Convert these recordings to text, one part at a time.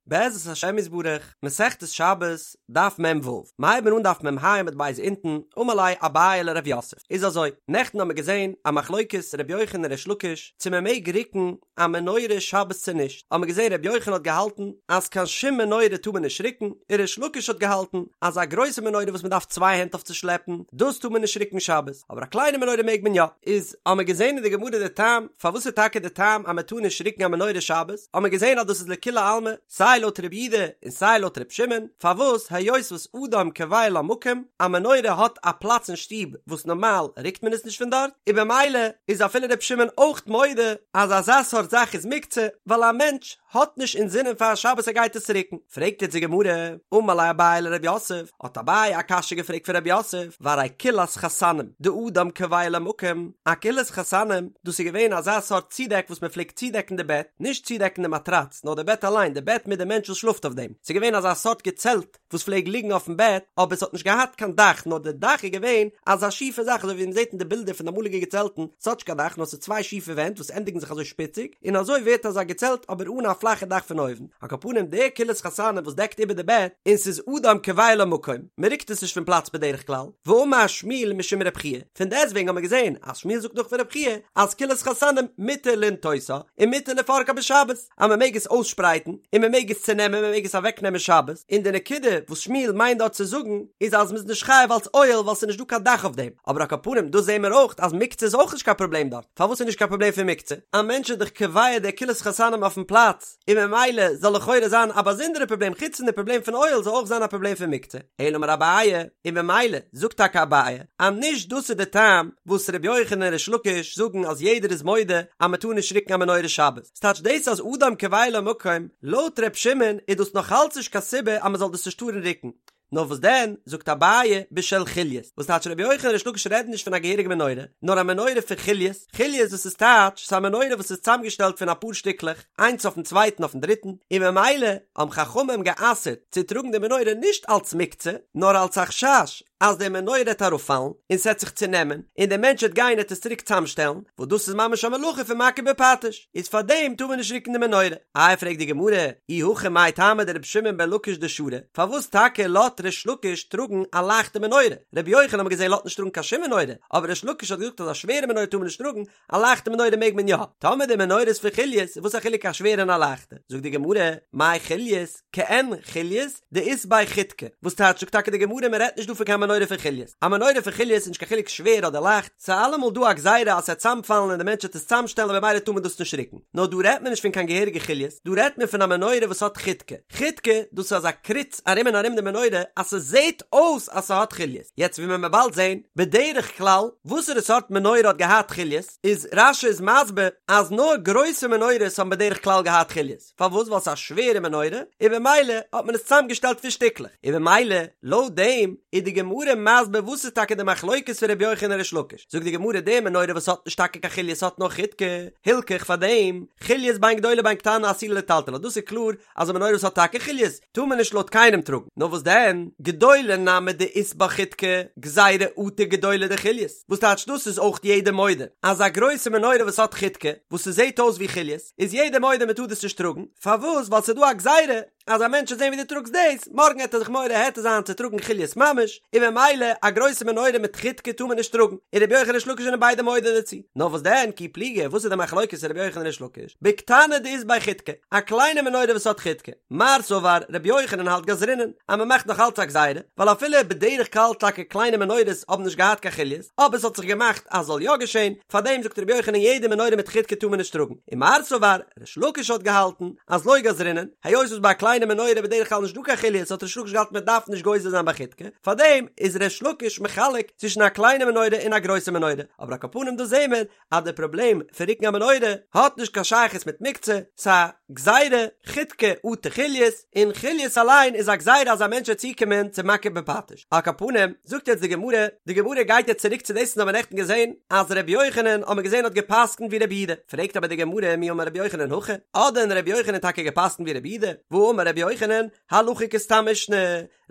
בעזרת השם יתברך, מסכת שבת, דף מ"ו, מ'הייבן אן דף מ"ה עמוד ב' אונטן, אמר ליה אביי לרב יוסף, איז אזוי, נעכטן האמיר געזען א מחלוקת ר' יוחנן און ריש לקיש צו מען מעג רוקן א מנורה שבת צו נישט, האמיר געזען ר' יוחנן האט געהאלטן אז קיין שום מנורה טאר מען נישט רוקן, און ריש לקיש האט געהאלטן אז א גרויסע מנורה וואס מען דארף צוויי הענט אויף צו שלעפן, דאס טאר מען נישט רוקן שבת, אבער א קליינע מנורה מעג מען יא. איז האמיר געזען אין די גמרא די טעם פארוואס איז טאקע די טעם אז מען טאר נישט רוקן א מנורה שבת, האמיר געזען אז דאס איז לכולי עלמא, סיי לויט רבי יהודה און סיי לויט רבי שמעון, פארוואס היות וואס אדם קובע לה מקום, א מנורה האט א פלאץ אין שטוב וואס נארמאל רוקט מען עס נישט פון דארט, און במילא איז אפילו רבי שמעון אויך מודה אז אזא סארט זאך איז מוקצה, ווייל א מענטש האט נישט אינזינען פאר שבת ער גייט עס רוקן. פרעגט יעצט די גמרא, אמר ליה אביי לרב יוסף, האט אביי א קשיא געפרעגט פון רב יוסף, והרי כילת חתנים, דאדם קובע לה מקום, א כילת חתנים, דאס איז געווען אזא סארט צודעק וואס מען פלעגט צודעקן די בעט, נישט צודעקן די מאטראץ, נאר די בעט אליין, די בעט מיט די מענטש וואס שלאפט אויף דעם, ס'איז געווען אזא סארט געצעלט וואס פלעג ליגן אויפן בעט, אבער ס'האט נישט געהאט קיין דאך, נאר די דאך איז געווען אזא שיפע זאך, אזוי ווי מען זעט אין די בילדער פון די אמאליגע געצעלטן, ס'האט נישט קיין דאך, נאר ס'איז צוויי שיפע ווענט וואס ענדיגן זיך אזוי שפיציג, און אזוי ווערט אזא געצעלט אבער אן א פלאכע דאך פון אויבן, על כל פנים די כילת חתנים וואס דעקט איבער די בעט, און ס'איז אדם קובע לה מקום, מען רוקט עס נישט פון פלאץ בדרך כלל, ואמר שמואל משום רב חייא, פון דעסטוועגן האט מען געזען אז שמואל זאגט נאך פון רב חייא אז כילת חתנים מותר לנטותה און מותר לפרקה בשבת, אז מען מעג עס אויסשפרייטן און מען מעג עס צונעמען מען מעג עס אוועקנעמען שבת, און די נקודה וואס שמואל מיינט דארט צו זאגן איז אז מען איז נישט חייב אלס אוהל ווייל ס'איז נישט דא קיין דאך אויף דעם, אבער על כל פנים דא זעהן מיר אויך אז מוקצה איז אויך נישט קיין פראבלעם דארט, פארוואס איז נישט קיין פראבלעם פון מוקצה? א מענטש איז דאך קובע די כילת חתנים אויפן פלאץ, און ממילא זאל לכאורה זיין א באזונדערע פראבלעם חוץ פון די פראבלעם פון אוהל זאל אויך זיין א פראבלעם פון מוקצה, אלא אמר אביי, און ממילא זאגט טאקע אביי אז נישט דאס איז די טעם וואס ר' יוחנן און ריש לקיש זאגן אז יעדער איז מודה אז מען טאר נישט רוקן א מנורה שבת, ס'טייטש דאס אז אדם קובע לה מקום, לויט ר' שמעון איז דאס נאך אלץ נישט קיין סיבה אז מען זאל דאס נישט טארן רוקן, נאר וואס דען, זאגט אביי, בשל חוליות, וואס טייטש רבי יוחנן און ריש לקיש רעדן נישט פון א געהעריגע מנורה, נאר א מנורה פון חוליות, חוליות דאס איז טייטש, ס'איז א מנורה וואס איז צוזאמגעשטעלט פון אפאר שטיקלעך, איינס אויפן צווייטן אויפן דריטן, און ממילא האבן חכמים גע'אסר'ט צו טראגן די מנורה נישט אלץ מוקצה, נאר אלץ א חשש אז די מנורה העט אראפפאלן, און ס'עט זיך צונעמען, און דער מענטש העט גיין העט עס צוריק צוזאמשטעלן, וואס דאס איז ממש א מלאכה פון מכה בפטיש, איז פארדעם טאר מען נישט רוקן די מנורה. איי פרעגט די גמרא, אי הכי מאי טעמא דרבי שמעון בן לקיש דשרי, פארוואס טאקע לאט ריש לקיש טראגן א לייכטע מנורה? רבי יוחנן האט מען געזען לאט נישט טראגן קיין שום מנורה, אבער ריש לקיש האט געזאגט אז א שווערע מנורה טאר מען נישט טראגן, א לייכטע מנורה מעג מען יא. טאמער די מנורה איז פון חוליות, וואס א חילוק א שווערע און א לייכטע? זאגט די גמרא, מאי חוליות, כעין חוליות, דאית ביה חיתקא, וואס טייטש זאגט טאקע די גמרא מען רעדט נישט דא פון קיין מנורה פון חוליות, א מנורה פון חוליות איז נישט קיין חילוק שווער אדער לייכט, ס'איז אלעמאל דא א גזירה אז ס'עט צאמפאלן און די מענטש וועט עס צאמשטעלן און במילא טאר מען דאס נישט רוקן, נאר דא רעדט מען נישט פון קיין געהעריגע חוליות, דא רעדט מען פון א מנורה וואס האט חיתקא, חיתקא דאס איז אזא קריץ ארום און ארום די מנורה אז ס'זעהט אויס אז ס'האט חוליות, יעצט ווי מען וועט באלד זעהן, בדרך כלל וואסערע סארט מנורה האט געהאט חוליות, איז רש"י איז מסביר אז נאר גרויסע מנורות האבן בדרך כלל געהאט חוליות. פארוואס? ווייל ס'איז א שווערע מנורה, און במילא האט מען עס צוזאמגעשטעלט פון שטיקלעך, און במילא לויט דעם איז די גמרא מסביר וואס איז טאקע די מחלוקת פון רבי יוחנן און ריש לקיש, זאגט די גמרא די מנורה וואס האט נישט טאקע קיין חוליות האט נאר חיתקא, הילכך פאר דעם, חוליות בין גדולה בין קטנה אסורה לטלטלה דאס איז קלאר אז א מנורה וואס האט טאקע חוליות טאר מען נישט לויט קיינעם טראגן, נאר וואס דען, גדולה נמי דאית בה חיתקא, גזירה אטו גדולה דחוליות, וואס טייטש דאס איז אויך יעדער מודה אז א גרויסע מנורה וואס האט חיתקא, וואס ס'זעט אויס ווי חוליות, איז יעדער מודה מען טאר דאס נישט טראגן, פארוואס? ווייל ס'איז דא א גזירה אז א מענטש וועט זען ווי דו טראגסט דאס, מארגן העט ער זיך מורה היתר זיין צו טראגן חוליות ממש, און ממילא א גרויסע מנורה מיט חיתקא טאר מען נישט טראגן, און רבי יוחנן ריש לקיש זענען ביידע מודה דערצו. נאר וואס דען, כי פליגי, וואס איז די מחלוקת פון רבי יוחנן און ריש לקיש? בקטנה דאית בה חיתקא, א קליינע מנורה וואס האט חיתקא. מר סבר, רבי יוחנן האלט גזרינן, אז מען מאכט נאך אלץ א גזירה, ווייל אפילו בדרך כלל טאקע קליינע מנורות האבן נישט געהאט קיין חוליות, אבער ס'האט זיך געמאכט אז זאל יא געשען, פארדעם זאגט רבי יוחנן יעדע מנורה מיט חיתקא טאר מען נישט טראגן, און מר סבר, ריש לקיש האט געהאלטן אז לא גזרינן, היות וואס ביי א קליינע מנורה איז בדרך כלל נישט דא קיין חוליות האט ריש לקיש געהאלטן מען דארף נישט גוזר זיין ביי חיתקא, פארדעם איז ריש לקיש מחלק צווישן א קליינע מנורה און א גרויסע מנורה, אבער על כל פנים דא זעהן מיר אז די פראבלעם פון רוקן א מנורה האט נישט קיין שייכות מיט מוקצה, ס'א גזירה, חיתקא אטו חוליות, און חוליות אליין איז א גזירה אז א מענטש וועט צוקומען צו מכה בפטיש. על כל פנים, זאגט יעצט די גמרא, די גמרא גייט יעצט צוריק צו דאס וואס האבן נעכטן געזען, אז ר' יוחנן האט מען געזען האט גע'פסק'נט ווי ר' יהודה, פרעגט אבער די גמרא מי אמר ר' יוחנן הכי, האט דען ר' יוחנן טאקע גע'פסק'נט ווי ר' יהודה? והאמר אמר רבי יוחנן, הלכה כסתם משנה,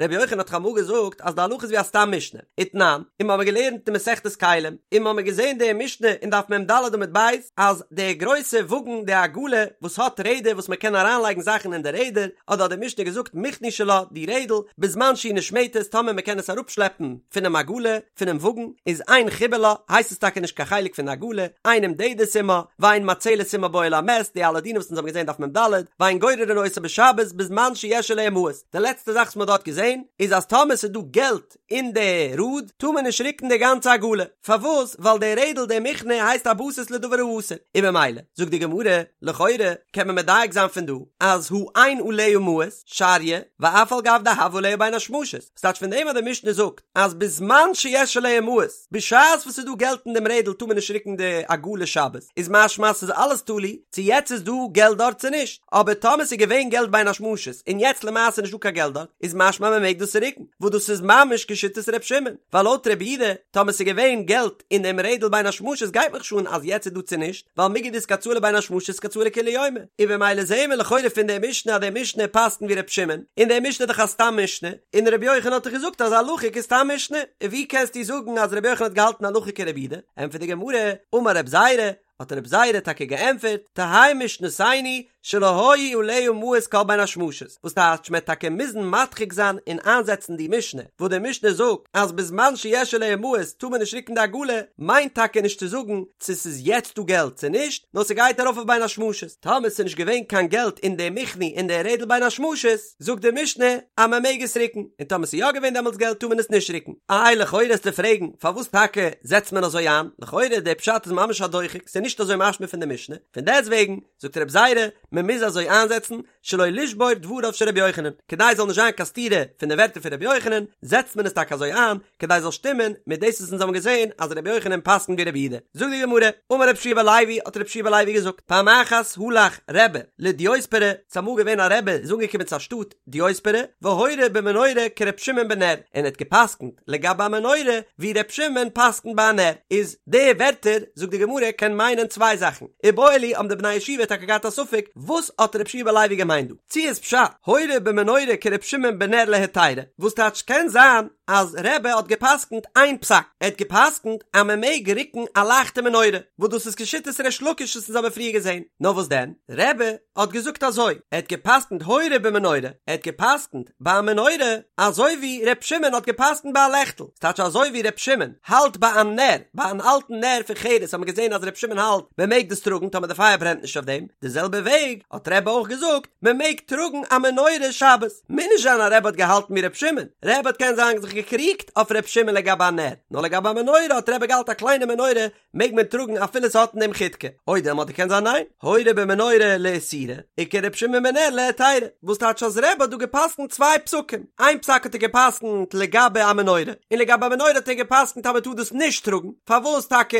רבי יוחנן האט דאך אמאל געזאגט אז די הלכה איז ווי א סתם משנה, ותנן, און מ'האמיר געלערנט אין מסכת כלים, און מ'האמיר געזען די משנה אין דף מ"ד עמוד ב', אז די גרויסע וואגן די עגלה וואס האט רעדער וואס מ'קען אריינלייגן זאכן אין די רעדער, אדער האט די משנה געזאגט מכני שלה, די רעדל, בזמן שהיא נשמטת טאמער מ'קען עס אראפשלעפן פונעם עגלה, פונעם וואגן, איז אין חיבור לה, הייסט עס טאקע נישט קיין חלק פון די עגלה, אין נמדדת עמה, ואין מצלת עמה באוהל המת, די אלע דינים וואס אונז האבן געזען דף מ"ד, ואין גוררין אותה בשבת בזמן שיש עליה מעות. די לעצטע זאך וואס מען האט דארט געזען איז אז טאמער ס'איז דא געלט אין די ראד טאר מען נישט רוקן די גאנצע עגלה, פארוואס? ווייל די רעדל די מכנה הייסט א בסיס לדבר האסור, און ממילא זאגט די גמרא, לכאורה קען מען מדייק זיין פון דא אז הא אין עליה מעות, שריא, ואף על גב דהוה עליה בין השמשות, ס'טייטש פון דעם אז די משנה זאגט אז בזמן שיש עליה מעות, בשעת וואס ס'איז דא געלט אין דעם רעדל טאר מען נישט רוקן די עגלה שבת, איז משמע אז ס'איז אלעס תלוי צו יעצט איז דא געלט דארט צו נישט, אבער טאמער ס'איז געווען געלט בין השמשות און יעצט למעשה נישט דא קיין געלט דארט, איז משמע מען מעג דאס רוקן, וואס דאס איז ממש כשיטת ר' שמעון, ווייל לויט רבי יהודה, טאמער ס'איז געווען געלט אין דעם רעדל בין השמשות גייט מיך נישט אן אז יעצט איז דא צו נישט, ווייל מיגו דאיתקצאי לבין השמשות איתקצאי לכולי יומא, און במילא זעהן מיר לכאורה פון די משנה אז די משנה פסק'נט ווי ר' שמעון, און די משנה איז דאך א סתם משנה, און רבי יוחנן האט דאך געזאגט אז הלכה כסתם משנה, און ווי קענסטו זאגן אז רבי יוחנן האט געהאלטן הלכה כרבי יהודה? ענטפערט די גמרא, אמר רב זירא, האט רב זירא טאקע געענטפערט, תהא משנתנו שלא היו עליה מעות כל בין השמשות, וואס טייטש מ'עט טאקע מוזן מדחיק זיין און איינזעצן די משנה, וואס די משנה זאגט אז בזמן שיש עליה מעות טאר מען נישט רוקן די עגלה, מיינט טאקע נישט צו זאגן צו ס'איז יעצט דא געלט צו נישט, נאר ס'גייט ארויף אויף בין השמשות, טאמער ס'איז נישט געווען קיין געלט אין די מכני אין די רעדל בין השמשות, זאגט די משנה אז מען מעג עס רוקן, און טאמער ס'איז יא געווען דעמאלטס געלט טאר מען עס נישט רוקן. איי לכאורה וועסטו פרעגן פארוואס טאקע זעצט מען אזוי איין, לכאורה דער פשט איז ממש א דוחק, ס'איז נישט אזוי משמע פון די משנה, פון דעסטוועגן זאגט רב זירא מען מוז אזוי איינזעצן שלא לשבור דבריו של רבי יוחנן, כדי ס'זאל נישט זיין קיין סתירה פון די ווערטער פון רבי יוחנן, זעצט מען עס טאקע אזוי איין, כדי ס'זאל שטימען מיט דאס וואס אונז האבן געזען אז רבי יוחנן פסק'נט ווי רבי יהודה. זאגט די גמרא, אמר רבי יהושע בן לוי, האט רבי יהושע בן לוי געזאגט, פעם אחת הלך רבי לדיוספרא, ס'איז אמאל געווען א רבי איז אנגעקומען צו א שטאט דיוספרא, והורה במנורה כר' שמעון בנר, און ער האט געפסקנט לגבי א מנורה ווי ר' שמעון פסקנט ביי א נר, איז די ווערטער, זאגט די גמרא, קען מיינען צוויי זאכן, איבעיא להו האבן די בני ישיבה טאקע געהאט א ספק, וואס האט רבי יהושע בן לוי געמיינט דא? צו איז פשט, הורה במנורה כר' שמעון בנר להיתירא, וואס טייטש קען זיין אז רבי האט געפסקנט איין פסק, ער האט געפסקנט אז מען מעג רוקן א לייכטע מנורה, וואס דאס איז כשיטת ריש לקיש וואס אונז האבן פריער געזען, נאר וואס דען, רבי האט געזאגט אזוי, ער האט געפסקנט הורה במנורה, ער האט געפסקנט ביי א מנורה אזוי ווי ר' שמעון האט געפסקנט ביי א לעכטל, ס'טייטש אזוי ווי ר' שמעון האלט ביי א נר, ביי אן אלטן נר פון חרס האט מען געזען אז ר' שמעון האלט מען מעג דאס טראגן טאמער די פייער ברענט נישט אויף דעם, די זעלבע וועג האט רבי אויך געזאגט מען מעג טראגן א מנורה שבת, מוז נישט זיין אז רבי האט געהאלטן ווי ר' שמעון, רבי האט קען זיין זיך געקריגט אויף ר' שמעון לגבי א נר, נאר לגבי א מנורה האט רבי געהאלט א קליינע מנורה מעג מען טראגן אפילו ס'האט אין דעם חידקא, או דילמא אדער קען זיין ניין, הורה במנורה לאיסורא, וכר' שמעון בנר להיתירא, וואס טייטש אז רבי האט דא געפסקנט צוויי פסקים, איין פסק האט ער געפסקנט לגבי א מנורה, און לגבי א מנורה האט ער געפסקנט אז מ'טאר דאס נישט טראגן, פארוואס טאקע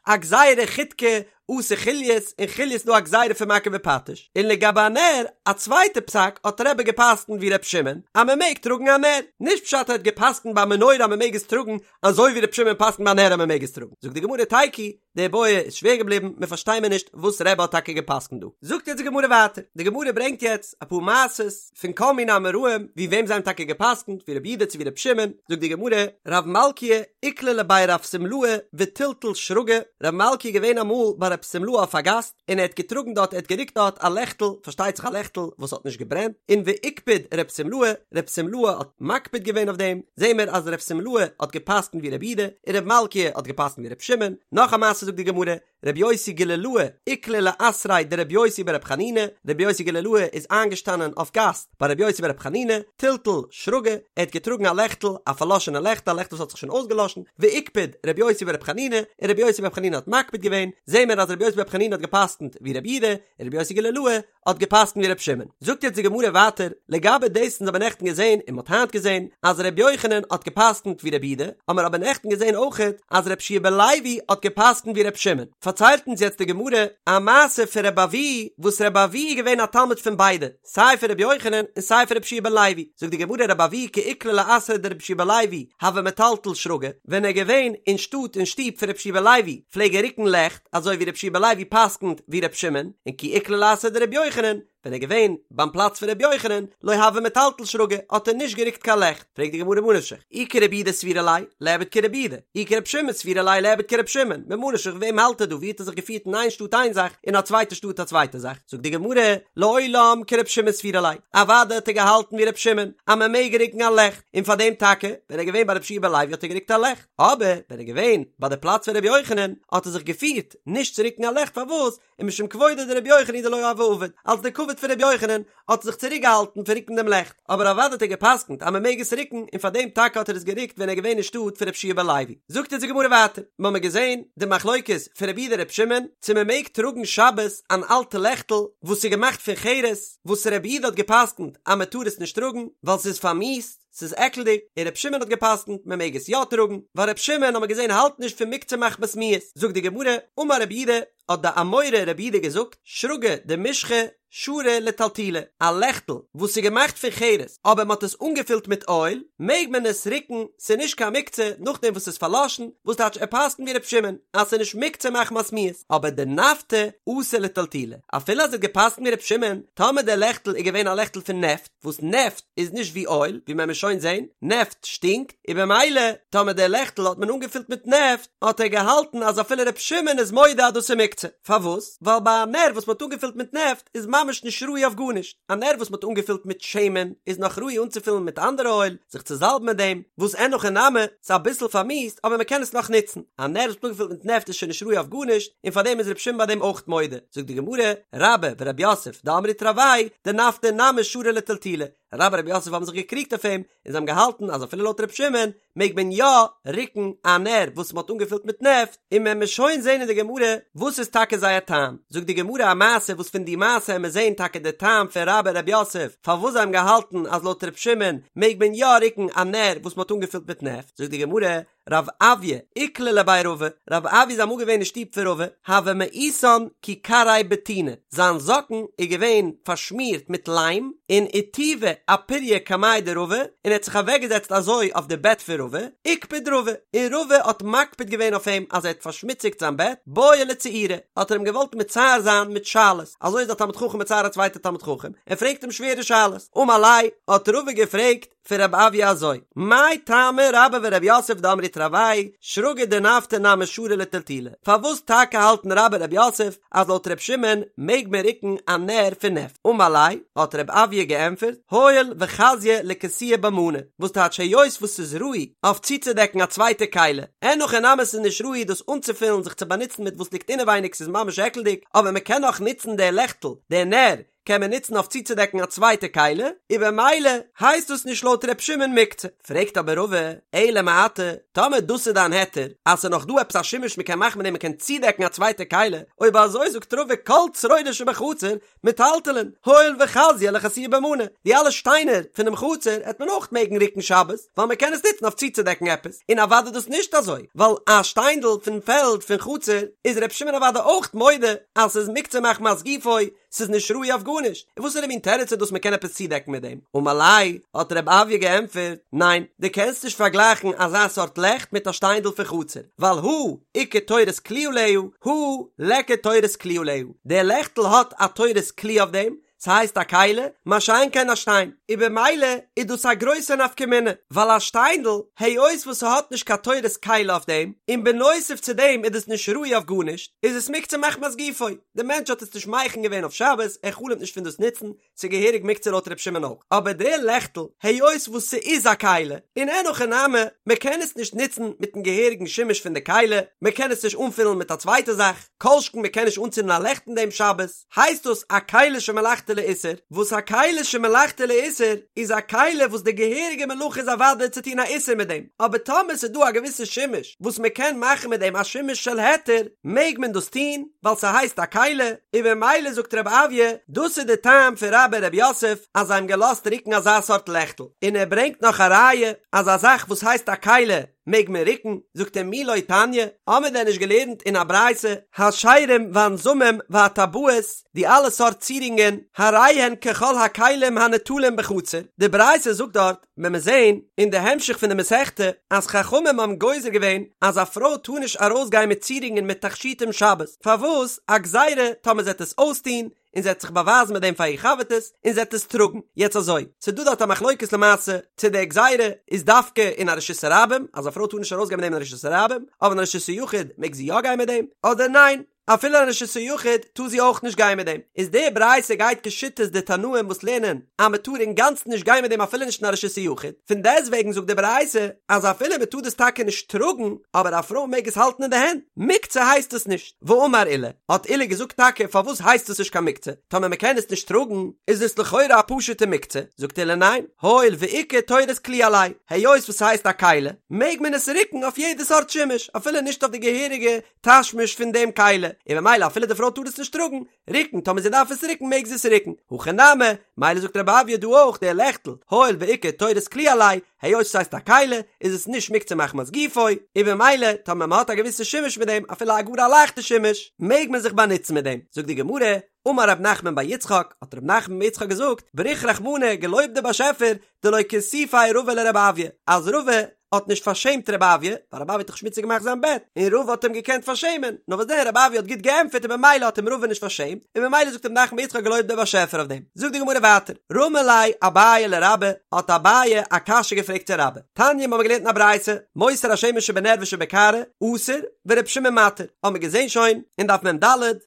א גזירה חידקא אתי חוליות, אין חוליות איז דא א גזירה פון מכה בפטיש, און לגבי א נר, א צווייטע פסק האט רבי געפסקנט ווי ר' שמעון אז מ'מעג טראגן א נר, נישט פשט ער האט געפסקנט ביי א מנורה אז מ'מעג עס טראגן אזוי ווי ר' שמעון פסק'נט ביי נר אז מען מעג עס טראגן, זאגט די גמרא תיקו, די בעיא איז שווער געבליבן, מען פארשטיי מיר נישט וואס רבי האט טאקע געפסק'נט דא. זאגט יעצט די גמרא ווייטער, די גמרא ברענגט יעצט אפאר מעשות פון כל מיני אמוראים ווי וועם זיי האבן טאקע געפסק'נט, ווי רבי יהודה צו ווי רבי שמעון, זאגט די גמרא, רב מלכיה איקלע לבי רב שמלאי וטלטל שרגא, רב מלכיה איז געווען אמאל ביי רב שמלאי אויף א גאסט, און ער האט געטראגן דארט, ער האט גערוקט דארט א לעכטל, פארשטייט זיך א לעכטל וואס האט נישט געברענט, און ואיקפד רב שמלאי, רב שמלאי האט מקפיד געווען אויף דעם, זעהן מיר אז רב שמלאי האט געפסקנט ווי רבי יהודה, און רב מלכיה האט געפסקנט ווי רב שמעון, נאך א מעשה זאגט די גמרא, רבי יוסי גלילאה איקלע לאתריה דרבי יוסי ברבי חנינא, רבי יוסי גלילאה איז איינגעשטאנען אויף גאסט ביי רבי יוסי ברבי חנינא, טלטל שרגא, ער האט געטראגן א לעכטל, א פארלאשענע לעכטל, א לעכטל וואס האט זיך שוין אויסגעלאשן, ואיקפד רבי יוסי ברבי חנינא, און רבי יוסי ברבי חנינא האט מקפיד געווען, זעהן מיר אז רבי יוסי ברבי חנינא האט געפסקנט ווי רבי יהודה, און רבי יוסי גלילאה האט געפסקנט ווי רבי שמעון. זאגט יעצט די גמרא ווייטער, לגבי דאס אונז האבן נעכטן געזעהן און מ'האט היינט געזעהן אז רבי יוחנן האט געפסקנט ווי רבי יהודה, האמיר אבער נעכטן געזעהן אויכעט אז רבי יהושע בן לוי האט געפסקנט ווי רבי שמעון. פארציילט אונז יעצט די גמרא א מעשה פון רבי אבהו, וואס רבי אבהו איז געווען א תלמיד פון ביידע, סיי פון רבי יוחנן און סיי פון רבי יהושע בן לוי, זאגט די גמרא רבי אבהו כי איקלע לאתריה דרבי יהושע בן לוי הוה מטלטל שרגא, ווען ער איז געווען אין שטאט אין שטוב פון רבי יהושע בן לוי פלעג ער רוקן לעכט, אזוי ווי רבי יהושע בן לוי פסק'נט ווי רבי שמעון, און כי איקלע לאתריה דרבי יוחנן. ווען ער איז געווען ביים פלאץ פון ר' יוחנן, לא הוה מטלטל שרגא, האט ער נישט גערוקט קיין לעכט. פרעגט די גמרא ממה נפשך, אי כרבי יהודה סבירא ליה, ליעבד כרבי יהודה, אי כרבי שמעון סבירא ליה, ליעבד כרבי שמעון, ממה נפשך וועם האלט ער דא, ווי האט ער זיך געפירט אין איין שטאט איין זאך, אין א צווייטע שטאט א צווייטע זאך, זאגט די גמרא, לעולם כרבי שמעון סבירא ליה, אוודאי האט ער געהאלטן ווי רבי שמעון, אז מען מעג רוקן א לעכט, און פאר דעם טאקע, ווען ער איז געווען ביי רבי יהושע בן לוי האט ער גערוקט א לעכט, אבער ווען ער איז געווען ביי די פלאץ פון רבי יוחנן, האט ער זיך געפירט נישט צו רוקן א לעכט, פארוואס? ומשום כבודו דרבי יוחנן הוא דלא הוה עביד, אלס די כבוד פון רבי יוחנן האט ער זיך צוריק געהאלטן פון רוקן דעם לעכט, אבער אוודאי האט ער געפסקנט אז מען מעג עס רוקן און פאר דעם טאקע האט ער עס גערוקט ווען ער איז געווען אין שטאט פון רבי יהושע בן לוי. זאגט אונז די גמרא ווייטער, מיר האבן געזען די מחלוקת פון רבי יהודה רבי שמעון צו מען מעג טראגן שבת אן אלטע לעכטל וואס איז געמאכט פון חרס, וואס רבי יהודה האט געפסקנט אז מען טאר עס נישט טראגן ווייל ס'איז פארמיאוסט, ס'איז עקלדיג, און ר' שמעון האט געפסקנט מען מעג עס יא טראגן, ווייל ר' שמעון האט מען געזען האלט נישט פון מוקצה מחמת מיאוס, זאגט די גמרא, אמר רב יהודה, האט די אמורא רב יהודה געזאגט, שרגא דמשחא שרי לטלטולי, א לעכטל וואס איז געמאכט פון חרס אבער מען האט עס אנגעפילט מיט אויל, מעג מען עס רוקן, ס'איז נישט קיין מוקצה נאכדעם וואס ס'איז פארלאשן, וואס טייטש ער פסקנט ווי ר' שמעון אז ס'איז נישט מוקצה מחמת מיאוס, אבער דנפטא אסור לטלטולי, אפילו אז ער האט געפסקנט ווי ר' שמעון, טאמער דער לעכטל איז געווען א לעכטל פון נעפט, וואס נעפט איז נישט ווי אויל, ווי מען וועט שוין זען, נעפט שטינקט, און במילא טאמער דער לעכטל האט מען אנגעפילט מיט נעפט, האט ער געהאלטן אז אפילו ר' שמעון איז מודה אז דאס איז מוקצה. פארוואס? ווייל ביי א נר וואס מען האט אנגעפילט מיט נעפט איז ממש נישט ראוי אויף גארנישט, א נר וואס מען האט אנגעפילט מיט שמן איז נאך ראוי אנצופילן מיט אנדערע אויל, זיך צו זאלבן מיט דעם, וואס אין הכי נמי, ס'איז אביסל פארמיאוסט אבער מען קען עס נאך נוצן, א נר וואס מ'האט אנגעפילט מיט נעפט איז שוין נישט ראוי אויף גארנישט, און פארדעם איז ר' שמעון ביי דעם אויך מודה. זאגט די גמרא, רבה ורב יוסף דאמרי תרוייהו דנפטא נמי שרי לטלטולי, רבה און רב יוסף האבן זיך געקריגט אויף אים, און זיי האבן געהאלטן אז אפילו לויט ר' שמעון מעג מען יא רוקן א נר וואס מ'האט אנגעפילט מיט נעפט, און מען וועט שוין זען אין די גמרא וואס איז טאקע זייער טעם, זאגט די גמרא א מעשה וואס פון די מעשה וועט מען זען טאקע די טעם פון רבה און רב יוסף פארוואס זיי האבן געהאלטן אז לויט ר' שמעון מעג מען יא רוקן א נר וואס מ'האט אנגעפילט מיט נעפט, זאגט די גמרא, רב אויא איקלע לבי רבא, רב אויא איז אמאל געווען אין שטוב פון רבא, הוה מאיסן כי כרעיה בטינא, זיין זאקן איז געווען פארשמירט מיט ליים, און איתיבא אפוריא קמיה דרבא, און ער האט זיך אוועקגעזעצט אזוי אויף די בעט פון רבא, איקפד רבא, און רבא האט מקפיד געווען אויף אים אז ער האט פארשמוציגט זיין בעט, בעי לצעוריה, האט ער אים געוואלט מצער זיין מיט שאלות, אזוי איז א תלמיד חכם מצער א צווייטע תלמיד חכם, ער פרעגט אים שווערע שאלות, אמר ליה, האט רבא געפרעגט, פון רב אויא אזוי, מאי טעמא רבה ורב יוסף דאמרי תרוייהו שרגא דנפטא נמי שרי לטלטולי, פארוואס טאקע האלטן רבה און רב יוסף אז לויט ר' שמעון מעג מען רוקן א נר פון נעפט? אמר ליה, האט רב אויא געענטפערט, הואיל וחזיא לכסויי בה מאני, וואס טייטש היות וואס ס'איז ראוי אויף צוצודעקן א צווייטע כלי, אין הכי נמי ס'איז נישט ראוי דאס אנצופילן זיך צו באנוצן מיט וואס ליגט אינעווייניג ס'איז ממש עקלדיג, אבער מ'קען נאך נוצן די לעכטל, די נר, קען מען נוצן אויף צוצודעקן א צווייטע כלי, און במילא הייסט דאס נישט לויט ר' שמעון מוקצה. פרעגט אבער רבא, אלא מעתה, טאמער דאס איז דיין היתר, אז ס'איז נאך דא עפעס א שימוש מ'קען מאכן מיט דעם מ'קען צודעקן א צווייטע כלי, אויב אזוי זאגט רבא כל צרורות שבחצר מטלטלין, הואיל וחזיא לכסויי בה מאני, די אלע שטיינער פונעם חצר העט מען אויך מעגן רוקן שבת, ווייל מ'קען עס נוצן אויף צוצודעקן עפעס, און אוודאי דאס נישט אזוי, ווייל א שטיינדל פון פעלד פון חצר איז ר' שמעון אוודאי אויך מודה אז ס'איז מוקצה מחמת גופו, ס'איז נישט ראוי אויף גארנישט, און וואסערע מין תירוץ איז דאס מ'קען עפעס צודעקן מיט דעם? אמר ליה, האט רב אויא געענטפערט, ניין, דו קענסט נישט פארגלייכן אזא סארט לעכט מיט א שטיינדל פון חצר, ווייל הא איכא תורת כלי עליה, הא ליכא תורת כלי עליה, דער לעכטל האט א תורת כלי אויף דעם, ס'הייסט א כלי, מה שאין כן א שטיין, און במילא איז דאס א גרויסע נפקא מינה, ווייל א שטיינדל, היות וואס ס'האט נישט קיין תורת כלי אויף דעם, און בנוסף צו דעם איז דאס נישט ראוי אויף גארנישט, איז עס מוקצה מחמת גופו. די מענטש האט עס נישט מכין געווען אויף שבת, ער חלומ'ט נישט פון דאס נוצן, ס'איז געהעריג מוקצה לויט ר' שמעון אויך. אבער די לעכטל, היות וואס ס'איז א כלי, און אין הכי נמי, מ'קען עס נישט נוצן מיטן געהעריגן שימוש פון די כלי, מ'קען עס נישט אנפילן מיט א צווייטע זאך, כל שכן מ'קען נישט אנצינדן א לעכט אין דעם שבת, הייסט דאס א כלי שמלאכתו לאיסור, וואס א כלי שמלאכתו לאיסור איז א כלי וואס די געהעריגע מלאכה איז אוודאי צו טון א איסור מיט דעם, אבער טאמער ס'איז דא א געוויסע שימוש וואס מ'קען מאכן מיט דעם א שימוש של היתר, מעג מען דאס טון, ווייל ס'הייסט א כלי, און במילא זאגט רב אויא, דאס איז די טעם פון רבה און רב יוסף אז זיי האבן געלאזט רוקן אזא סארט לעכטל, און ער ברענגט נאך א ראיה אז א זאך וואס הייסט א כלי מעג מען רוקן, זאגט ער מי לא תניא, האמיר דען נישט געלערנט אין א ברייתא, השירים והנזמים והטבעות, די אלע סארט צירונגען, הרי הן ככל הכלים הניטלים בחצר, די ברייתא זאגט דארט, וועט מען זעהן אין די המשך פון די מסכתא אז חכמים האבן גוזר געווען אז א פרוי טאר נישט ארויסגיין מיט צירונגען מיט תכשיטים שבת, פארוואס? א גזירה טאמער זי וועט עס אויסטוהן. און זי עט זיך באווייזן מיט דעם פאר איר חבר'טעס, און זי עט עס טראגן. יעצט אזוי, ס'איז דא דארט א מחלוקת למעשה, צו די גזירה איז דווקא אין א רשות הרבים, אז א פרוי טאר נישט ארויסגיין מיט דעם אין רשות הרבים, אבער אין רשות היחיד מעג זי יא גיין מיט דעם, אדער ניין, אפילו אין רשות היחיד טאר זי אויך נישט גיין מיט דעם. איז די ברייתא גייט כשיטת די תנאים וואס לערנען אז מען טאר אינגאנצן נישט גיין מיט דעם אפילו נישט אין א רשות היחיד, פון דעסטוועגן זאגט די ברייתא אז אפילו מען טאר דאס טאקע נישט טראגן, אבער א פרוי מעג עס האלטן אין די הענט, מוקצה הייסט עס נישט. ואמר עולא, האט עולא געזאגט טאקע פארוואס הייסט עס נישט קיין מוקצה, טאמער מען קען עס נישט טראגן איז עס לכאורה א פשוטע מוקצה, זאגט עולא ניין, הואיל ואיכא תורת כלי עליה, היות וואס ס'הייסט א כלי, מעג מען עס רוקן אויף יעדע סארט שימוש, אפילו נישט אויף די געהעריגע תשמיש פון דעם כלי, און ממילא אפילו די פרוי טאר עס נישט טראגן, רוקן, טאמער זי דארף עס רוקן מעג זי עס רוקן, הכא נמי, מילא זאגט רב אויא דא אויך די לעכטל, הואיל ואיכא תורת כלי עליה, היות ס'הייסט א כלי, איז עס נישט מוקצה מחמת גופו, און במילא טאמער מ'האט א געוויסע שימוש מיט דעם, אפילו א גאר א לייכטע שימוש, מעג מען זיך באנוצן מיט דעם. זאגט די גמרא, אמר רב נחמן בר יצחק, האט רב נחמן בר יצחק געזאגט, בריך רחמנא, געלויבט דער באשעפער, דלא כיסופיה רבא לרב אויא, אז רבא האט נישט פארשעמט רב אויא, ווייל רב אויא האט דאך שמוציג געמאכט זיין בעט, און רבא האט אים געקענט פארשעמען, נאר וואס דען רב אויא האט גוט געענטפערט און במילא האט אים רבא נישט פארשעמט, און במילא זאגט רב נחמן בר יצחק געלויבט דער באשעפער אויף דעם. זאגט די גמרא ווייטער, רמי ליה אביי לרבה, האט אביי א קשיא געפרעגט צו רבה, תניא מ'האמיר געלערנט אין א ברייתא, מותר השמן שבנר ושבקערה, אסור, ור' שמעון מתיר, האמיר געזען שוין אין דף מ"ד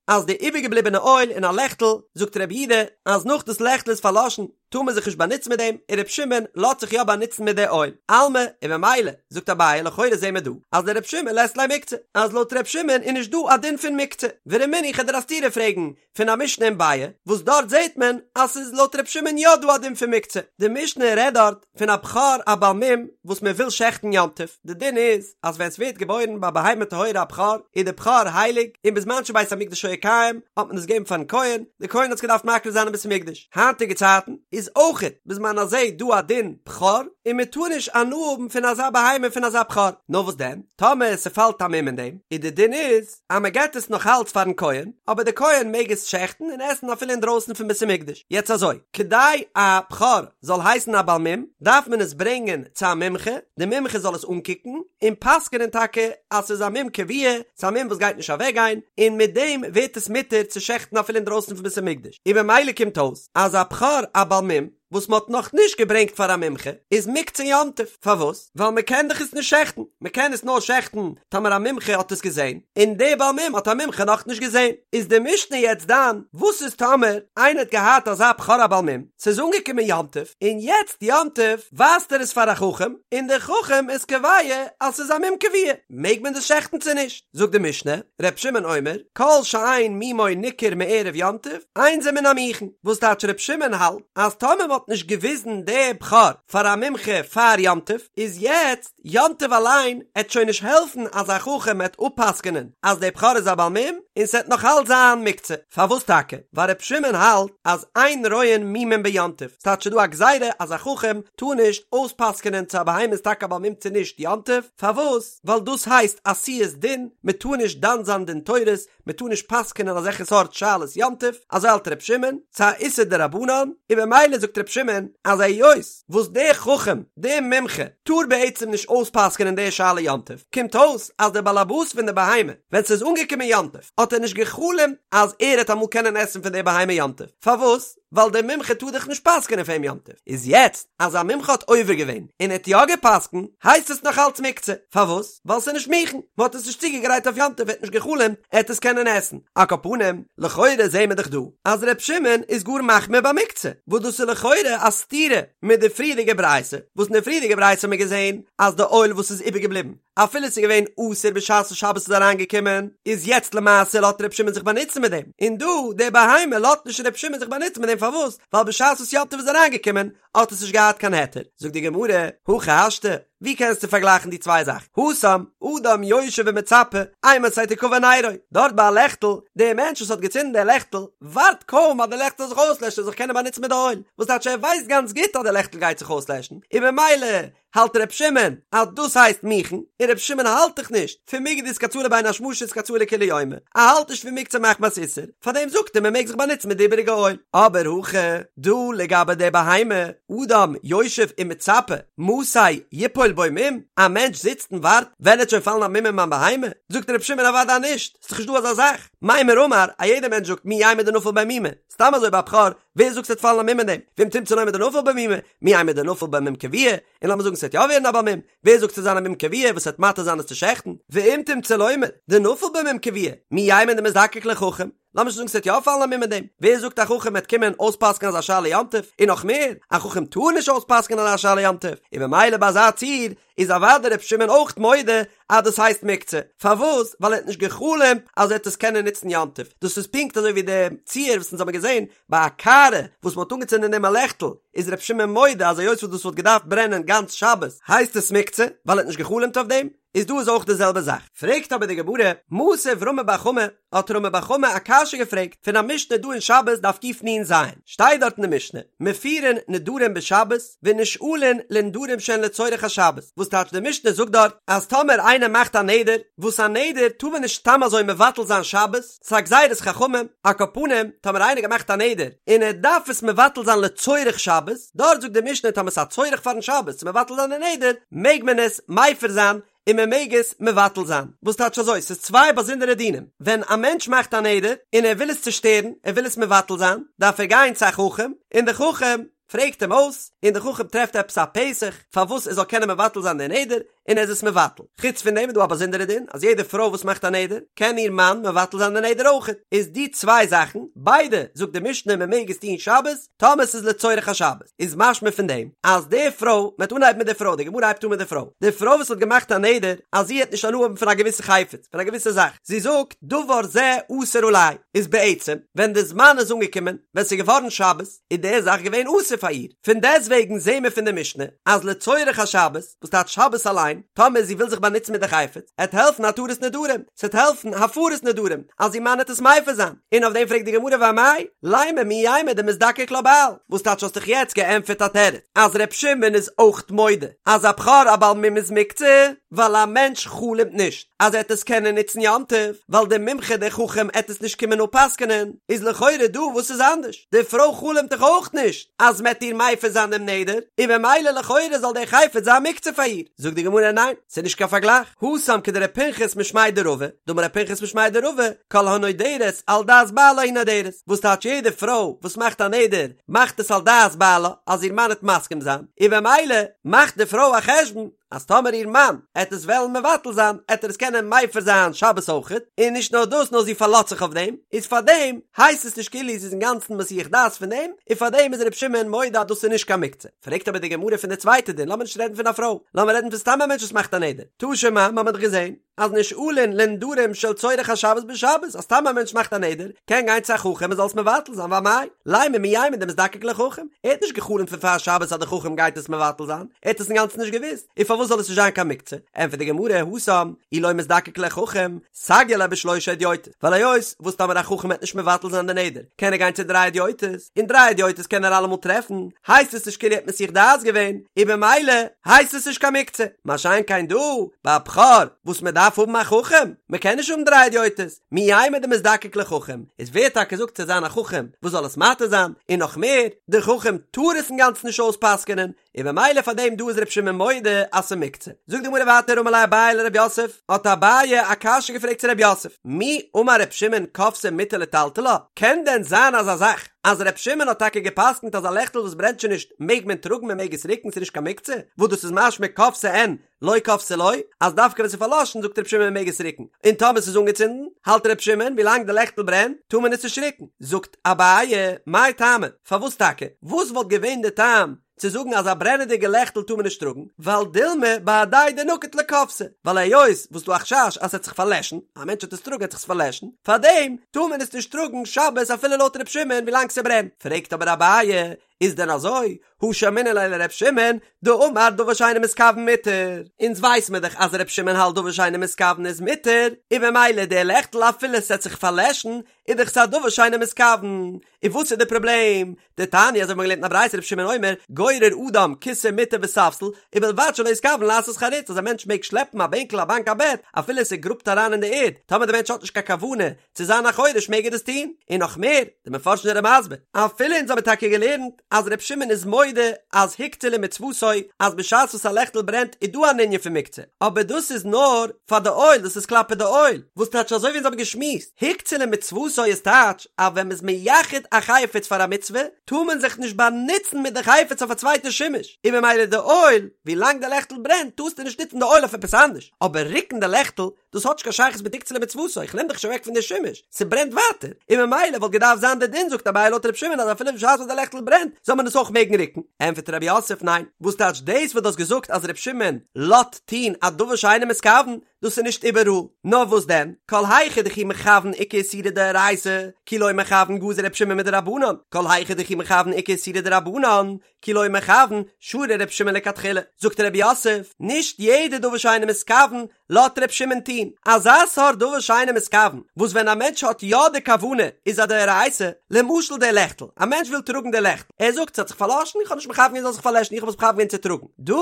אז די איבערגעבליבענע אויל אין א לעכטל, זאגט רבי יהודה אז נאך דאס לעכטל איז פארלאשן, טאר מען זיך נישט באנוצן מיט דעם, און ר' שמעון לאזט זיך יא באנוצן מיט די אויל. אלמא, און ממילא, זאגט אביי, לכאורה זעהן מיר דא, אז לר' שמעון לית ליה מוקצה, אז לויט ר' שמעון איז נישט דא א דין פון מוקצה. ורמינהו כ'וועל דיר א סתירה פרעגן פון א משנה אין ביעא, וואס דארט זעהט מען אז ס'איז לויט ר' שמעון יא דא א דין פון מוקצה. די משנה רעדט דארט פון א בכור א בעל מום וואס מען וויל שעכטן יום טוב, די דין איז אז ווען ס'ווערט געבוירן ביי בהמה טהורה א בכור, איז די בכור הייליג, און בזמן שבית המקדש היה קיים האט מען עס געגעבן פארן כהן, די כהן האט עס געדארפט מקריב זיין אין בית המקדש. היינטיגע צייטן איז אויכעט בזמן הזה דא א דין בכור, און מען טאר נישט הנאה האבן פון אזא בהמה פון אזא בכור, נאר וואס דען טאמער ס'פאלט א מום אין דעם, איז די דין איז אז מען געט עס נאך אלץ פארן כהן, אבער די כהן מעג עס שעכטן און עסן אפילו אינדרויסן פון בית המקדש. יעצט אזוי, כדי א בכור זאל הייסן א בעל מום, דארף מען עס ברענגען צו א מומחה, די מומחה זאל עס אנקוקן, און פסק'נען טאקע אז ס'איז א מום קבוע, ס'איז א מום וואס גייט נישט אוועקגיין, און מיט דעם ווערט עס מותר צו שעכטן אפילו אינדרויסן פון בית המקדש. און במילא קומט אויס אז א בכור א בעל מום וואס מ'האט נאך נישט געברענגט פאר א מומחה איז מוקצה יום טוב, פארוואס? ווייל מ'קען דאך עס נישט שעכטן, מ'קען עס נאר שעכטן טאמער א מומחה האט עס געזען, און די בעל מום האט א מומחה נאך נישט געזען. איז די משנה יעצט דן וואס איז טאמער איינער האט געהאט אזא בכור א בעל מום, ס'איז אנגעקומען יום טוב, און יעצט יום טוב ווייזט ער עס פאר א חכם, און דער חכם איז קובע אז ס'איז א מום קבוע, מעג מען דאס שעכטן צו נישט? זאגט די משנה, ר' שמעון אומר, כל שאין מומו ניכר מערב יום טוב, אין זה מן המוכן, וואס טייטש ר' שמעון האלט אז טאמער מ'האט נישט געוויזן די בכור פאר א מומחה פאר יום טוב, איז יעצט יום טוב אליין עט שוין נישט העלפן אז א חכם עט אפפסק'נען אז די בכור איז א בעל מום, און ס'עט נאך אלץ זיין מוקצה. פארוואס טאקע? ווייל ר' שמעון האלט אז אין רואין מומים ביום טוב, ס'טייטש ס'דא א גזירה אז א חכם טאר נישט אויספסק'נען צו א בהמה איז טאקע א בעל מום צו נישט יום טוב, פארוואס? ווייל דאס הייסט עשיית דין, מען טאר נישט דן זיין דין תורות, מען טאר נישט פסק'נען אזעלכע סארט שאלות יום טוב, אזוי האלט ר' שמעון, ס'איז א איסור דרבנן, און במילא זאגט ר' שמעון אז היות וואס דער חכם, דער מומחה, טאר בעצם נישט אויספסק'נען די שאלה יום טוב, קומט אויס אז דער בעל הבית פון די בהמה, ווען ס'איז אנגעקומען יום טוב, האט ער נישט גע'חלומ'ט אז ער העט אמאל קענען עסן פון די בהמה יום טוב, פארוואס? ווייל דער מומחה טאר דאך נישט פסק'נען פאר אים יום טוב, איז יעצט אז א מומחה האט עובר געווען און האט יא געפסק'נט, הייסט עס נאך אלץ מוקצה, פארוואס? ווייל ס'איז נישט מוכן, מ'האט עס נישט צוגעגרייט אויף יום טוב, ער האט נישט גע'חלומ'ט ער העט עס קענען עסן. על כל פנים, לכאורה זעהן מיר דאך דא אז ר' שמעון איז גאר מחמיר ביי מוקצה, וואס דאס איז לכאורה א סתירה מיט די פריערדיגע ברייתא, וואס אין די פריערדיגע ברייתא האט מען געזעהן אז די אויל וואס איז איבערגעבליבן, אפילו ס'איז געווען אסור בשעת שבת איז אריינגעקומען, איז יעצט למעשה לאט ר' שמעון זיך באנוצן מיט דעם, און דא די בהמה לאט נישט ר' שמעון זיך באנוצן מיט דעם פארוואס? ווייל בשעת וואס יום טוב איז אריינגעקומען האט עס נישט געהאט קיין היתר, זאגט די גמרא, הכי השתא, ווי קענסטו פארגלייכן די צוויי זאכן, התם, אדם יושב ומצפה, אימתי תכבה נרו, דארט ביי א לעכטל, דער מענטש וואס האט געצינדן דער לעכטל, ווארט קוים אז די לעכטל זאל זיך אויסלעשן ער זאל זיך קענען באנוצן מיט די אויל, וואס טייטש ער ווייסט גאנץ גוט אז די לעכטל גייט זיך אויסלעשן, און במילא האלט ר' שמעון אז דאס הייסט מוכן, און ר' שמעון האלט דאך נישט פון מיגו דאיתקצאי לבין השמשות איתקצאי לכולי יומא, ער האלט נישט פון מוקצה מחמת איסור, פארדעם זאגט ער מען מעג זיך באנוצן מיט די איבעריגע אויל. אבער הכא דא לגבי די בהמה, אדם יושב ומצפה מתי יפול. דנפול בו מום, א מענטש זיצט און ווארט, ווען עט שוין פאלן א מום אין מיין בהמה? זאגט ר' שמעון אוודאי נישט, ס'איז דאך נישט דא אזא זאך, מימר אמר, א יעדער מענטש זאגט מי יימר דנפל ביה מומא, סתם אזוי ביי א בכור, ווער זאגט ס'עט פאלן א מום אין דעם? ואם תמצא לומר דנפל ביה מומא, מי יימר דנפל ביה מום קבוע, און לאמיר זאגן ס'עט יא ווערן א בעל מום, ווער זאגט ס'עט זיין א מום קבוע וואס עט מתיר זיין עס צו שעכטן? ואם תמצא לומר דנפל ביה מום קבוע, מי יימר דמזדקק לחכם, לאמיר שוין זאגן ס'עט יא פאלן א מום אין דעם, ווער זאגט א חכם עט קומען אויספסק'ן אזא שאלה יום טוב, און נאך מער, א חכם טאר נישט אויספסק'נען אזא שאלה יום טוב, און במילא ביי אזא ציור איז אוודאי ר' שמעון אויך מודה אז דאס הייסט מוקצה, פארוואס? ווייל ער האט נישט גע'חלומ'ט אז ער וועט עס קענען נוצן יום טוב, דאס איז פונקט אזוי ווי די ציור וואס אונז האבן געזען ביי א קערה וואס מ'האט אנגעצינדן אין דעם א לעכטל, איז ר' שמעון מודה אז היות וואס דאס וואלט געדארפט ברענען גאנץ שבת הייסט עס מוקצה, ווייל ער האט נישט גע'חלומ'ט אויף דעם, איז דא איז אויך די זעלבע זאך. פרעגט אבער די גמרא, מתיב רמי בר חמא, האט רמי בר חמא א קשיא געפרעגט פון א משנה דא אין שבת דף קנ"ז, שטייט דארט אין די משנה, מפירין נדרים בשבת ונשאלין לנדרים שהן לצורך השבת, וואס טייטש די משנה זאגט דארט אז טאמער איינער מאכט א נדר, וואס א נדר טאר מען נישט סתם אזוי מבטל זיין שבת, ס'איז א גזירת חכמים, על כל פנים, טאמער איינער געמאכט א נדר און ער דארף עס מבטל זיין לצורך שבת, דארט זאגט די משנה טאמער ס'איז א צורך פארן שבת צו מבטל זיין די נדר, מעג מען עס מפר זיין און מען מעג עס מבטל זיין. וואס טייטש אזוי? ס'איז צוויי באזונדערע דינים. ווען א מענטש מאכט א נדר און ער וויל עס צושטערן, ער וויל עס מבטל זיין, דארף ער גיין צו א חכם, און דער חכם פרעגט אים אויס, און דער חכם טרעפט עפעס א פתח פארוואס ער זאל קענען מבטל זיין די נדר, און ער איז עס מבטל. חוץ פון דעם איז דא א באזונדערע דין, אז יעדע פרוי וואס מאכט א נדר, קען איר מאן מבטל זיין די נדר אויכעט. איז די צוויי זאכן, ביידע זאגט די משנה מען מעג עס טון שבת, טאמער ס'איז לצורך השבת. איז משמע פון דעם, אז די פרוי, מ'וועט אנהייבן מיט די פרוי, די גמרא הייבט אן מיט די פרוי, די פרוי וואס האט געמאכט א נדר, אז זי העט נישט הנאה האבן פון א געוויסע חפץ, פון א געוויסע זאך, זי זאגט, דבר זה אסור עלי, איז בעצם, ווען די זמן איז אנגעקומען, ווען ס'איז געווארן שבת, איז די זאך געווען אסור פאר איר. פון דעסטוועגן זעהן מיר פון די משנה אז לצורך השבת, וואס טייטש שבת אליין, טאמער זי וויל זיך באנוצן מיט די חפץ, עט העלפן התרת נדרים, ס'עט העלפן הפרת נדרים, אז איר מאן עט עס מפר זיין. און אויף דעם פרעגט די גמרא ואמאי, לימא מי יימר דמזדקק לה בעל, וואס טייטש האסט דאך יעצט געענטפערט א תירוץ אז ר' שמעון איז אויך מודה אז א בכור א בעל מום איז מוקצה, ווייל א מענטש חלומ'ט נישט אז ער עט עס קענען נוצן יום טוב, ווייל דער מומחה דער חכם עט עס נישט קומען אפ'פסק'נען, איז לכאורה דא וואס איז אנדערש? די פרוי חלומ'ט דאך אויך נישט אז מ'עט איר מפר זיין דעם נדר, און במילא לכאורה זאל דער חפץ זיין מוקצה פאר איר. זאגט די גמרא ניין, ס'איז נישט קיין פארגלייך, התם כדר' פנחס משמיה דרבא, דאמר ר' פנחס משמיה דרבא, כל הנודרת על דעת בעלה היא נודרת, וואס טייטש יעדע פרוי וואס מאכט א נדר מאכט עס על דעת בעלה אז איר מאן עט מסכים זיין, און במילא מאכט די פרוי א חשבון אז טאמער איר מאן עט עס וועלן מבטל זיין עט ער עס קענען מפר זיין שבת אויכעט, און נישט נאר דאס נאר זי פארלאזט זיך אויף דעם, איז פארדעם הייסט עס נישט כאילו זי איז אינגאנצן מסיח דעת פון דעם, און פארדעם איז ר' שמעון מודה אז דאס איז נישט קיין מוקצה. פרעגט אבער די גמרא פון די צווייטע דין, לאמיר נישט רעדן פון א פרוי, לאמיר רעדן פון סתם א מענטש וואס מאכט א נדר, תא שמע, מ'האמיר דאך געזען אז נשאלין לנדרים של צורך השבת בשבת, אז סתם א מענטש מאכט א נדר, קען גיין צו א חכם ער זאל עס מבטל זיין, ואמאי, לימא מי יימר דמזדקק לחכם, ער האט נישט גע'חלומ'ט פון פאר שבת אז די חכם גייט עס מבטל זיין, ער האט עס אינגאנצן נישט געוואוסט, און פארוואס זאל עס נישט זיין קיין מוקצה? ענטפערט די גמרא, התם, אי לא מזדקק לחכם, סגיא ליה בשלושה הדיוטות, ווייל היות וואס טאמער א חכם וועט נישט מבטל זיין די נדר, קען ער גיין צו דריי הדיוטות, און דריי הדיוטות קען ער אלעמאל טרעפן, הייסט עס נישט כאילו ער האט מסיח דעת געווען, און במילא הייסט עס נישט קיין מוקצה. מה שאין כן דא, ביי א בכור, וואס מען דארף האבן א חכם, מען קען נישט האבן דריי הדיוטות, מי יימר דמזדקק לחכם, איז ווער טאקע זאגט ס'זאל זיין א חכם וואס זאל עס מתיר זיין, און נאך מער, דער חכם טאר עס אינגאנצן נישט אויספסק'ענען, און במילא פאר דעם דא איז ר' שמעון מודה אז ס'מוקצה. זאגט די גמרא ווייטער אמר ליה אביי לר' יוסף, האט אביי א קשיא געפרעגט צו ר' יוסף, מי אמר ר' שמעון כבתה מותר לטלטלה, קען דען זיין אזא זאך אז ר' שמעון האט טאקע געפסקנט אז א לעכטל וואס ברענט שוין נישט מעג מען טראגן מען מעג עס ריקן ס'נישט קיין מוקצה, וואס דאס איז משמע כבתה אין לא כבתה לא, אז דווקא ווען ס'איז פארלאשן זאגט ר' שמעון מען מעג עס ריקן, און טאמער ס'איז אנגעצינדן האלט ר' שמעון ווילאנג די לעכטל ברענט טאר מען עס נישט ריקן, זאגט אביי, מאי טעמא, פארוואס טאקע? וואס וואלט געווען די טעם צו זאגן אז א ברענעדיגע לעכטל טאר מען נישט טראגן, ווייל דילמא בהדיה דנקיט ליה כבתה, ווייל היות וואס ס'דא א חשש אז ס'עט זיך פארלעשן, א מענטש וועט עס טראגן עט זיך עס פארלעשן, פארדעם טאר מען עס נישט טראגן שבת אפילו לויט ר' שמעון ווילאנג ס'ברענט. פרעגט אבער אביי, איז דען אזוי? הא שמעינן ליה לר' שמעון, דאמר דבר שאינו מתכוין מותר. אונז ווייס מיר דאך אז ר' שמעון האלט דבר שאינו מתכוין איז מותר, און במילא די לעכטל אפילו ס'עט זיך פארלעשן, איז דאך ס'א דבר שאינו מתכוין. און וואס איז די פראבלעם? דתניא אזוי ווי מ'האט געלערנט אין א ברייתא ר' שמעון אומר, גורר אדם כסא מטה וספסל, ובלבד שלא יתכוין לעשות חריץ אז א מענטש מעג שלעפן א בענקל א באנק א בעט, אפילו ס'גראבט אריין אין די ערד, טאמער די מענטש האט נישט קיין כוונה צו זיין א חורש מעג ער דאס טון, און נאך מער, די מפרשים זענען מסביר, אפילו אונז האבן טאקע געלערנט. אז ר' שמעון איז מודה אז הוקצה למצוותו אז בשעת וואס א לעכטל ברענט איז דא אן ענין פון מוקצה, אבער דאס איז נאר פאר די אויל, דאס איז כלפי די אויל, וואס טייטש אזוי ווי אונז האבן געשמועסט, הוקצה למצוותו איז טייטש אז ווען מ'איז מייחד א חפץ פאר א מצוה טאר מען זיך נישט באנוצן מיט די חפץ אויף א צווייטע שימוש, און ממילא די אויל, ווי לאנג די לעכטל ברענט טארסטו נישט נוצן די אויל אויף עפעס אנדערש, אבער רוקן די לעכטל דאס האט נישט קיין שייכות מיט הוקצה למצוותו, איך נעם דאך נישט אוועק פון די שימוש, ס'ברענט ווייטער, און ממילא וואלט געדארפט זיין די דין זאגט אביי לויט ר' שמעון אז אפילו בשעת וואס די לעכטל ברענט זאל מען עס אויך מעגן רוקן, ענטפערט רב יוסף ניין, וואס טייטש דאס וואס דו האסט געזאגט אז ר' שמעון לאזט טון א דבר שאינו מתכוון, דאס איז נישט איבעראל, נאר וואס דען, כל היכא דכי מכוון איכא איסורא דאורייתא, כי לא מכוון גזר ר' שמעון מדרבנן, כל היכא דכי מכוון איכא איסורא דרבנן, כי לא מכוון, שרי ר' שמעון לכתחילה, זאגט רב יוסף, נישט יעדע דבר שאינו מתכוון לאזט ר' שמעון טון, אזא סארט דבר שאינו מתכוון, וואס ווען א מענטש האט יא די כוונה איז א דאורייתא, למשל די לעכטל, א מענטש וויל טראגן די לעכטל, ער זאגט ס'האט זיך פארלאשן, איך האב נישט מכוון געווען ס'זאל זיך פארלעשן, איך האב עס מכוון געווען צו טראגן, דא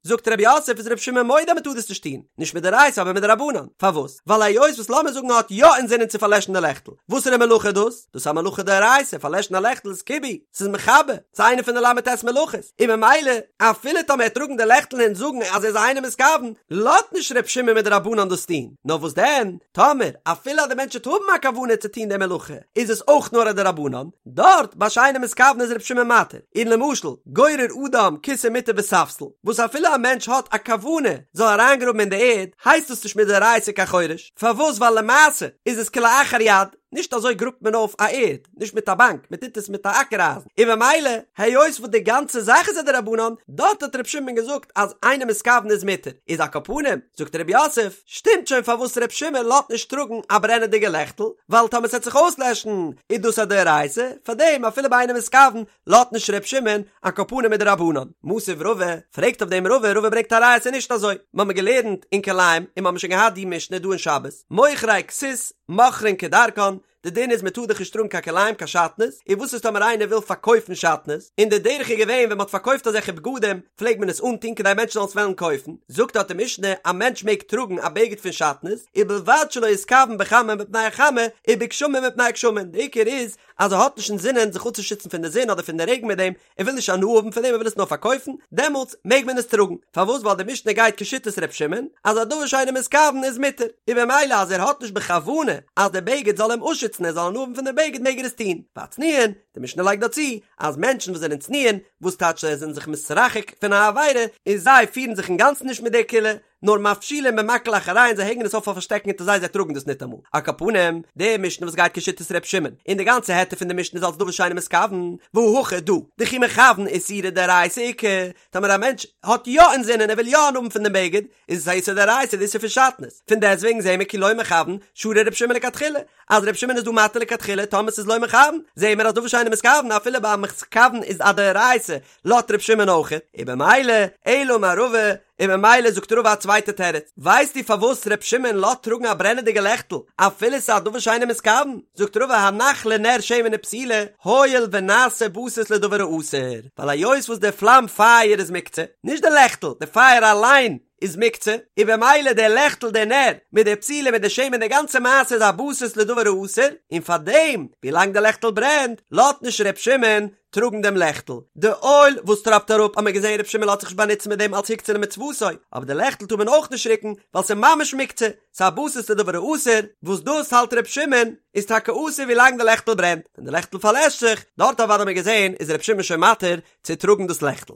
זאגט רב יוסף איז ר' שמעון מודה אז מ'טאר דאס נישט טון, נישט מדאורייתא אבער מדרבנן, פארוואס? ווייל היות וואס לאמיר זאגן ער האט יא אינזינען צו פארלעשן די לעכטל, וואסערע מלאכה איז דאס? דאס איז א מלאכה דאורייתא, פארלעשן א לעכטל איז כיבוי, ס'איז מכבה, ס'איז איינע פון די ל"ט מלאכות, און ממילא אפילו טאמער ער וועט טראגן די לעכטל און זאגן אז ער איז אינו מתכוון, לאזט נישט ר' שמעון מדרבנן דאס טון, נאר וואס דען, טאמער אפילו אז די מענטש וועט האבן א כוונה צו טון די מלאכה, איז עס אויך נאר א דרבנן, דארט ביי שאינו מתכוון איז ר' שמעון מתיר, און למשל, גורר אדם כסא מטה וספסל, וואס אפילו א מענטש האט א כוונה זאל אריינגראבן אין די ערד, הייסט דאס נישט מדאורייתא קיין חורש, פארוואס ווייל למעשה איז עס כלאחר יד, נישט אזוי גראבט מען אויף א ערד, נישט מיט א באנק, מען טוט עס מיט א אקער אייזן, און ממילא היות וואס די גאנצע זאך איז א דרבנן, דארט האט ר' שמעון געזאגט אז אינו מתכוון איז מותר, איז על כל פנים, זאגט ר' יוסף, שטימט שוין פארוואס ר' שמעון לאזט נישט טראגן א ברענעדיגע לעכטל, ווייל טאמער ס'עט זיך אויסלעשן איז דאס א דאורייתא, פארדעם אפילו ביי אינו מתכוון לאזט נישט ר' שמעון, על כל פנים מדרבנן. מתיב רבא, פרעגט אויף דעם רבא, רבא ברענגט א ראיה ס'איז נישט אזוי, מ'האמיר געלערנט אין כלאים און מ'האמיר שוין געהאט די משנה דא אין שבת, מוכרי כסות מוכרין כדרכן, די דין איז מ'טאר דאך נישט טראגן קיין כלאים קיין שעטנז, און וואס איז טאמער איינער וויל פארקויפן שעטנז, און די דרך איז געווען ווען מ'האט פארקויפט אזעלכע בגדים פלעגט מען עס אנטון כדי מענטשן זאלן עס וועלן קויפן, זאגט דארט די משנה א מענטש מעג טראגן א בגד פון שעטנז, ובלבד שלא יתכוון בחמה מפני החמה ובגשמים מפני הגשמים, די עיקר איז אז ער האט נישט אינזינען זיך אפצושיצן פון די זון אדער פון די רעגן מיט דעם, ער וויל נישט הנאה האבן פון דעם ער וויל עס נאר פארקויפן, דעמאלטס מעג מען עס טראגן, פארוואס ווייל די משנה גייט כשיטת ר' שמעון אז א דבר שאינו מתכוון איז מותר, און במילא אז ער האט נישט בכוונה אז די בגד זאל אים אפשיצן ער זאל הנאה האבן פון די בגד מעג ער עס טון, והצנועין, די משנה לייגט דא צו אז מענטשן וואס זענען צנועין, וואס טייטש זיי זענען זיך מתרחק פון א עבירה, און זיי פירן זיך אינגאנצן נישט מיט די קולא, נאר מפשילין במקל אחוריהן זיי הענגען עס אויף אויף א שטעקן אונטער זיי זיי טראגן דאס ניטאמאל. על כל פנים, די משנה וואס גייט כשיטת ר' שמעון, און די גאנצע היתר פון די משנה איז אלס דבר שאינו מתכוון, והא הכא דא, דכי מכוון איסורא דאורייתא איכא, טאמער א מענטש האט יא אינזינען ער וויל יא הנאה האבן פון דעם בגד, איז עס א איסור דאורייתא די איסור פון שעטנז, פון דעסטוועגן זעהן מיר כי לא מכוון, שרי ר' שמעון לכתחילה, אז ר' שמעון איז דא מתיר לכתחילה טאמער ס'איז לא מכוון, זעהן מיר אז דבר שאינו מתכוון אפילו ביי א מתכוון איז א דאורייתא, לאזט ר' שמעון אויכעט, און במילא, אלא אמר רבא, און ממילא זאגט רבא א צווייטע תירוץ, ווייסטו פארוואס ר' שמעון לאזט טראגן א ברענעדיגע לעכטל אפילו ס'איז א דבר שאינו מתכוון? זאגט רבא הנח לנר שמן ופתילה הואיל ונעשה בסיס לדבר האסור, ווייל היות וואס די פלאם פייער איז מוקצה, נישט די לעכטל, די פייער אליין איז מוקצה, און במילא די לעכטל די נר מיט די פתילה מיט די שמן די גאנצע מעשה איז א בסיס לדבר האסור, און פארדעם ווילאנג די לעכטל ברענט לאזט נישט ר' שמעון טראגן דעם לעכטל. די אויל וואס טראפט אראפ האט מען געזען ר' שמעון לאזט זיך נישט באנוצן מיט דעם אלס הוקצה למצוותו, אבער די לעכטל טאר מען אויך נישט רוקן ווייל ס'איז ממש מוקצה, ס'איז א בסיס לדבר האסור, וואס דאס האלט ר' שמעון איז טאקע אסור ווי לאנג די לעכטל ברענט, ווען די לעכטל פארלעשט זיך, דארט אוודאי האט מען געזען איז ר' שמעון שוין מתיר צו טראגן דאס לעכטל.